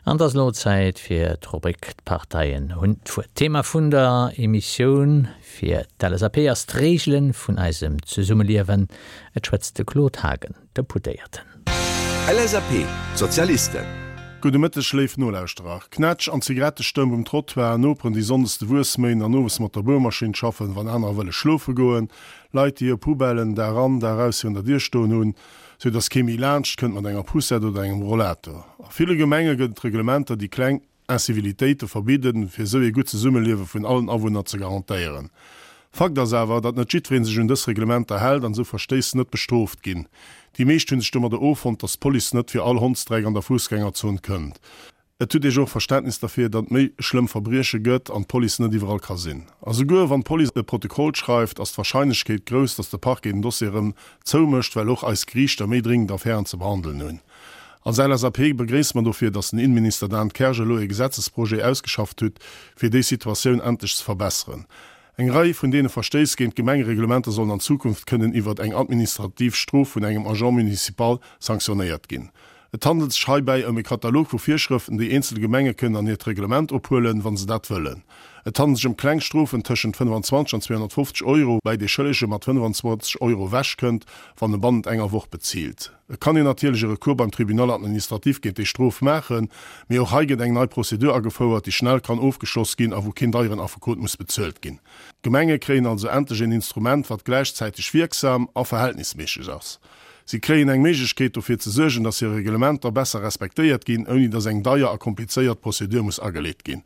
An et ass elo Zäit fir d'Rubrik D'Parteien hunn d'Wuert. D'Thema vun der Emissioun fir d'LSAP ass d'Reegele vun eisem Zesummeliewen. Et schwätzt de Claude Haagen, Deputéierten. LSAP, D'Sozialisten. Gudde Mëtteg léif Nolauschterer. Knätsch an Zigarettestëmp um Trottoir, Noperen déi sonndes de Wuess méien an owes mat der Buermaschinn schaffen, wann anerer wëlle schlofe goen, Leit déi hir Poubellen Dag an Dag aus virun der Dier stoen hunn, sou dass kee méi laanscht kënnt mat enger Poussette oder engem Rollator. A ville Gemenge gëtt et Reglementer déi kleng Incivilitéite verbidden, fir esou ee gutt Zesummeliewe vun allen Awunner ze garantéieren. Fakt ass awer, datt net jiddweree sech un dës Reglementer hält an esou Verstéiss net bestrooft ginn. Déi meescht hu sech domadder offonnt, datt d'Police net fir all Hondsdreck an der Fussgängerzon kënnt. Et huet ee jo och Verständnis derfir, datt et méi schlëmm Verbrieche gëtt an d'Police net iwwerall ka sinn. A souguer wann d'Police e Protokoll schreift, ass d'Warscheinlechkeet grouss, datt de Parquet den Dossier erëm zoumécht, well och eis Geriichter méi dringend Affären ze behandelen hunn. Als LSAP begréisse mer dofir, datt den Innenminister Dan Kersch elo e Gesetzesprojet ausgeschafft hutt, fir déi Situatioun endlech ze verbesseren. Eng Rei vun deene Verstéiss géint d'Gemengereglementer sollen an Zukunft kënnen iwwert eng administrativ Strof vun engem Agent municipal sanktionéiert ginn. Et handelt sech heibäi ëm e Katalog vu Virschrëften, déi eenzel Gemenge kënnen an hiert Reglement ophuelen, wa se dat wëllen. Et handelt sech ëm kleng Strofen tëschent 25 an 250 Euro, woubäi dee Schëllege mat 25 Euro ewechkënnt, wann e bannent enger Woch bezilt. Et kann een natierlech e Recours beim Tribunal administratif géint déi Strof maachen, mee och hei gëtt eng nei Prozedur agefouert, déi schnell kann ofgeschloss ginn a wou keen deieren Affekot muss bezuelt ginn. D'Gemenge kréien also endlech een Instrument, wat gläichzäiteg wierksam a verhältnisméisseg ass. Si kréien eng Méiglechkeet, dofir ze suergen, dass hir Reglementer besser respektéiert ginn, ouni dass eng deier a komplizéiert Prozedur muss ageleet ginn.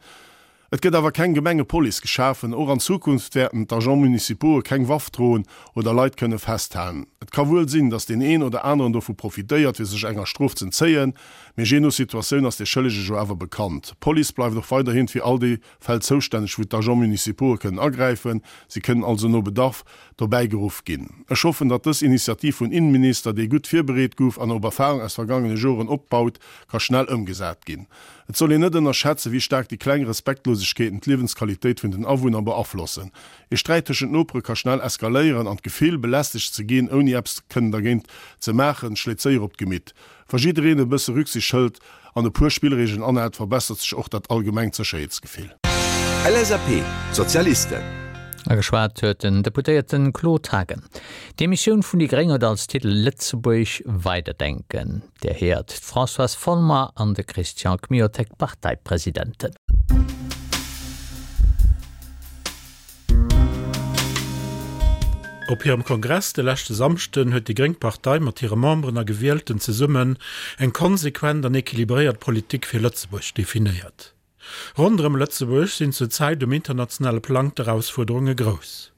Et gëtt awer keng Gemengepolice geschafen. Och an Zukunft wäerten d'Agents municipaux'e keng Waff droen oder Leit kënne festhalen. Et ka wuel sinn, dass deen een oder aneren dovu profitéiert, fir sech enger Strof z'entzéien, mee jee no Situatioun ass dee Schëllege jo awer bekannt. D'Police bleift och weiderhin fir all déi Fäll zoustänneg, wou d'Agents municipaux'e kënnen agräifen. Si kënnen also no Bedarf dobäi geruff ginn. Ech hoffen, datt dës Initiativ vun Innenminister, déi gutt virbereet gouf an op Erfahrung aus vergangene Joren opbaut, ka schnell ëmgesat ginn. Et soll een net ënnerschätzen, wéi staark déi kleng Respektlosegkeeten d'Liewensqualitéit vun den Awunner beaflossen. Ee Sträit tëschent Nopere ka schnell eskaléieren an d'Gefill, belästegt ze ginn, ouni eppes kënnen dergéint ze maachen, schléit séier op d'Gemitt. Wa jiddereen e bësse Rücksicht hëlt an e puer Spillreegelen anhält, verbessert sech och dat allgemengt Sécherheetsgefill. LSAP, Sozialisten. A geschwat huet den Deputéierten Claude Haagen. D'Emissioun vun déi gréng huet als Titel Lëtzebuerg weiderdenken. Dir héiert d'Françoise Folmer an de Christian Kmiotek, Parteipresidenten. Op hirem Kongress de leschte Samschden huet déi gréng Partei mat hire Memberen a Gewielten zesummen eng konsequent an equilibréiert Politik fir Lëtzebuerg definéiert. Ronderëm Lëtzebuerg sinn zur Zäit um internationale Plang d'Erausfuerderunge grouss.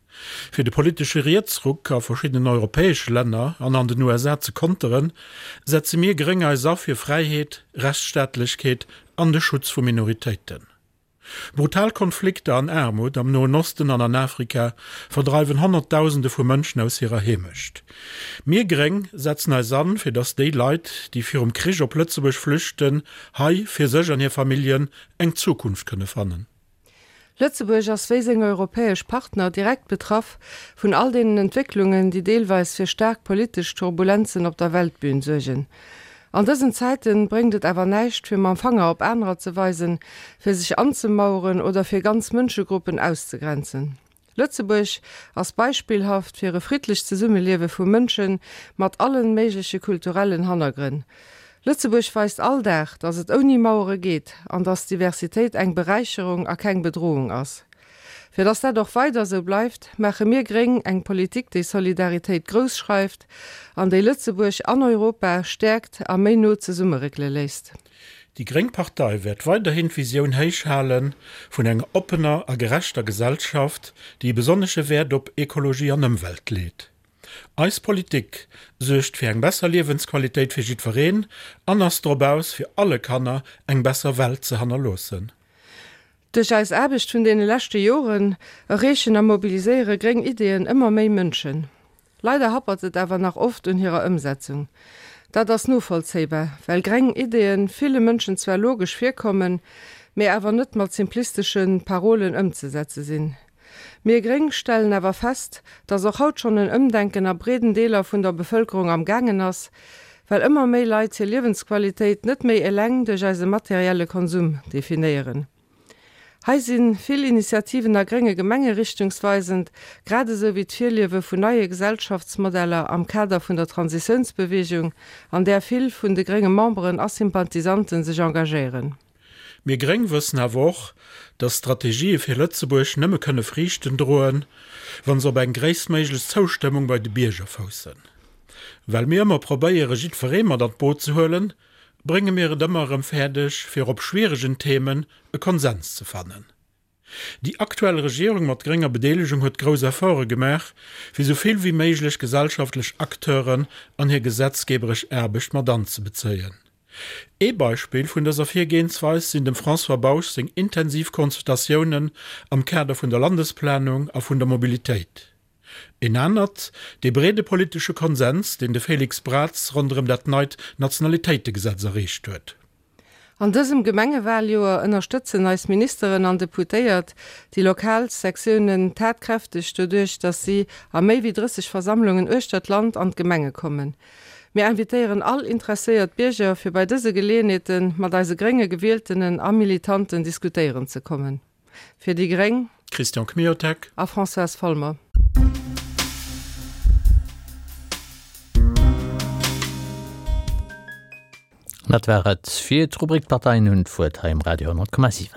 Fir de politesche Rietsruck a verschiddenen europäesche Länner an an den USA ze konteren, setze mir Gréng eis a fir Fräiheet, Rechtsstaatlechkeet an de Schutz vu Minoritéiten. Brutal Konflikter an Aarmut am Noen Osten an an Afrika verdreiwen Honnertdausende vu Mënschen aus hirer Heemecht. Mir Gréng setzen eis an, fir datt déi Leit, déi virum Krich op Lëtzebuerg flüchten, hei fir sech an hir Familljen eng Zukunft kënne fannen. Lëtzebuerg ass wéi seng europäesch Partner direkt betraff vun all deenen Entwécklungen, déi deelweis fir staark politesch Turbulenzen op der Weltbühn suergen. An dësen Zäiten bréngt et awer näischt, fir mam Fanger op anerer ze weisen, fir sech anzemaueren oder fir ganz Mënschegruppen auszegrenzen. Lëtzebuerg ass beispillhaft fir e friddlecht Zesummeliewe vu Mënsche mat allen méigleche kulturellen Hannergrënn. Lëtzebuerg weist all Dag, datt et ouni Mauere geet an datt Diversitéit eng Beräicherung a keng Bedrohung ass. Fir datt dat och weider esou bleift, maache mir Gréng eng Politik, déi Solidaritéit grouss schreift an déi Lëtzebuerg an Europa stäerkt a méi no zesummeréckele léisst. Déi gréng Partei wäert weiderhin d'Visioun héich hale vun enger oppener a gerechter Gesellschaft, déi e besonnesche Wäert op Ekologie an Ëmwelt leet. Eis Politik suergt fir eng besser Liewensqualitéit fir jiddwereen an ass drop aus, fir alle Kanner eng besser Welt ze hannerloossen. Duerch eis Aarbecht vun deene leschte Joren erreechen a mobiliséiere gréng Ideeën ëmmer méi Mënschen. Leider happert et awer nach oft un hirer Ëmsetzung. Dat ass novollzéibar, well greng Ideeën ville Mënschen zwar logesch virkommen, mee awer net mat simplistesche Parolen ëmzesetze sinn. Mir Gréng stellen awer fest, dass och haut schonn en Ëmdenken a breeden Deeler vun der Bevëlkerung am gaangen ass. Well ëmmer méi Leit hir Liewensqualitéit net méi eleng duerch eise materielle Konsum definéieren. Hei si vill Initiativen a grénge Gemenge richtungsweisend, grad esou wéi d'Virliewe vun neie Gesellschaftsmodeller am Kader vun der Transitiounsbeweegung, an där vill vun de grénge Memberen a Sympathisanten sech engagéieren. Mir Gréng wëssen awer och, datt Strategië fir Lëtzebuerg nëmme kënne Friichten droen, wa se op eng gréisstméiglech Zoustëmmung bei de Bierger foussen. Well mir ëmmer probéiere jiddweree mat an d'Boot ze huelen, brénge mir et ëmmer erëm fäerdeg, fir op schwieregen Themen e Konsens ze fannen. Déi aktuell Regierung mat grénger Bedeelegung huet grouss Efforte gemaach, fir sou vill wéi méiglech gesellschaftlech Acteuren an hir gesetzgeberesch Aarbecht mat anzebezéien. Ee Beispill vun dëser Virgehensweis sinn dem François Bausch seng intensiv Consultatiounen am Kader vun der Landesplanung a vun der Mobilitéit. Een anert, dee breede politesche Konsens, deen de Félix Braz ronderëm dat neit Nationalitéitegesetz erreecht huet. An dësem Gemengewaljoer ënnerstëtzen eis Ministeren an Deputéiert déi lokal Sektiounen tatkräfteg doduerch, datt si a méi wéi 30 Versammlungen uechter d'Land an d'Gemenge kommen. Mir invitéieren all interesséiert Bierger fir bei dëse Geleeënheete mat eise grénge Gewieltenen a Militanten diskutéieren ze kommen. Fir déi gréng. Christian Kmiotek. A Françoise Folmer. Dat war et fir d'Rubrik D'Parteien hunn d'Wuert hei um Radio 10,7.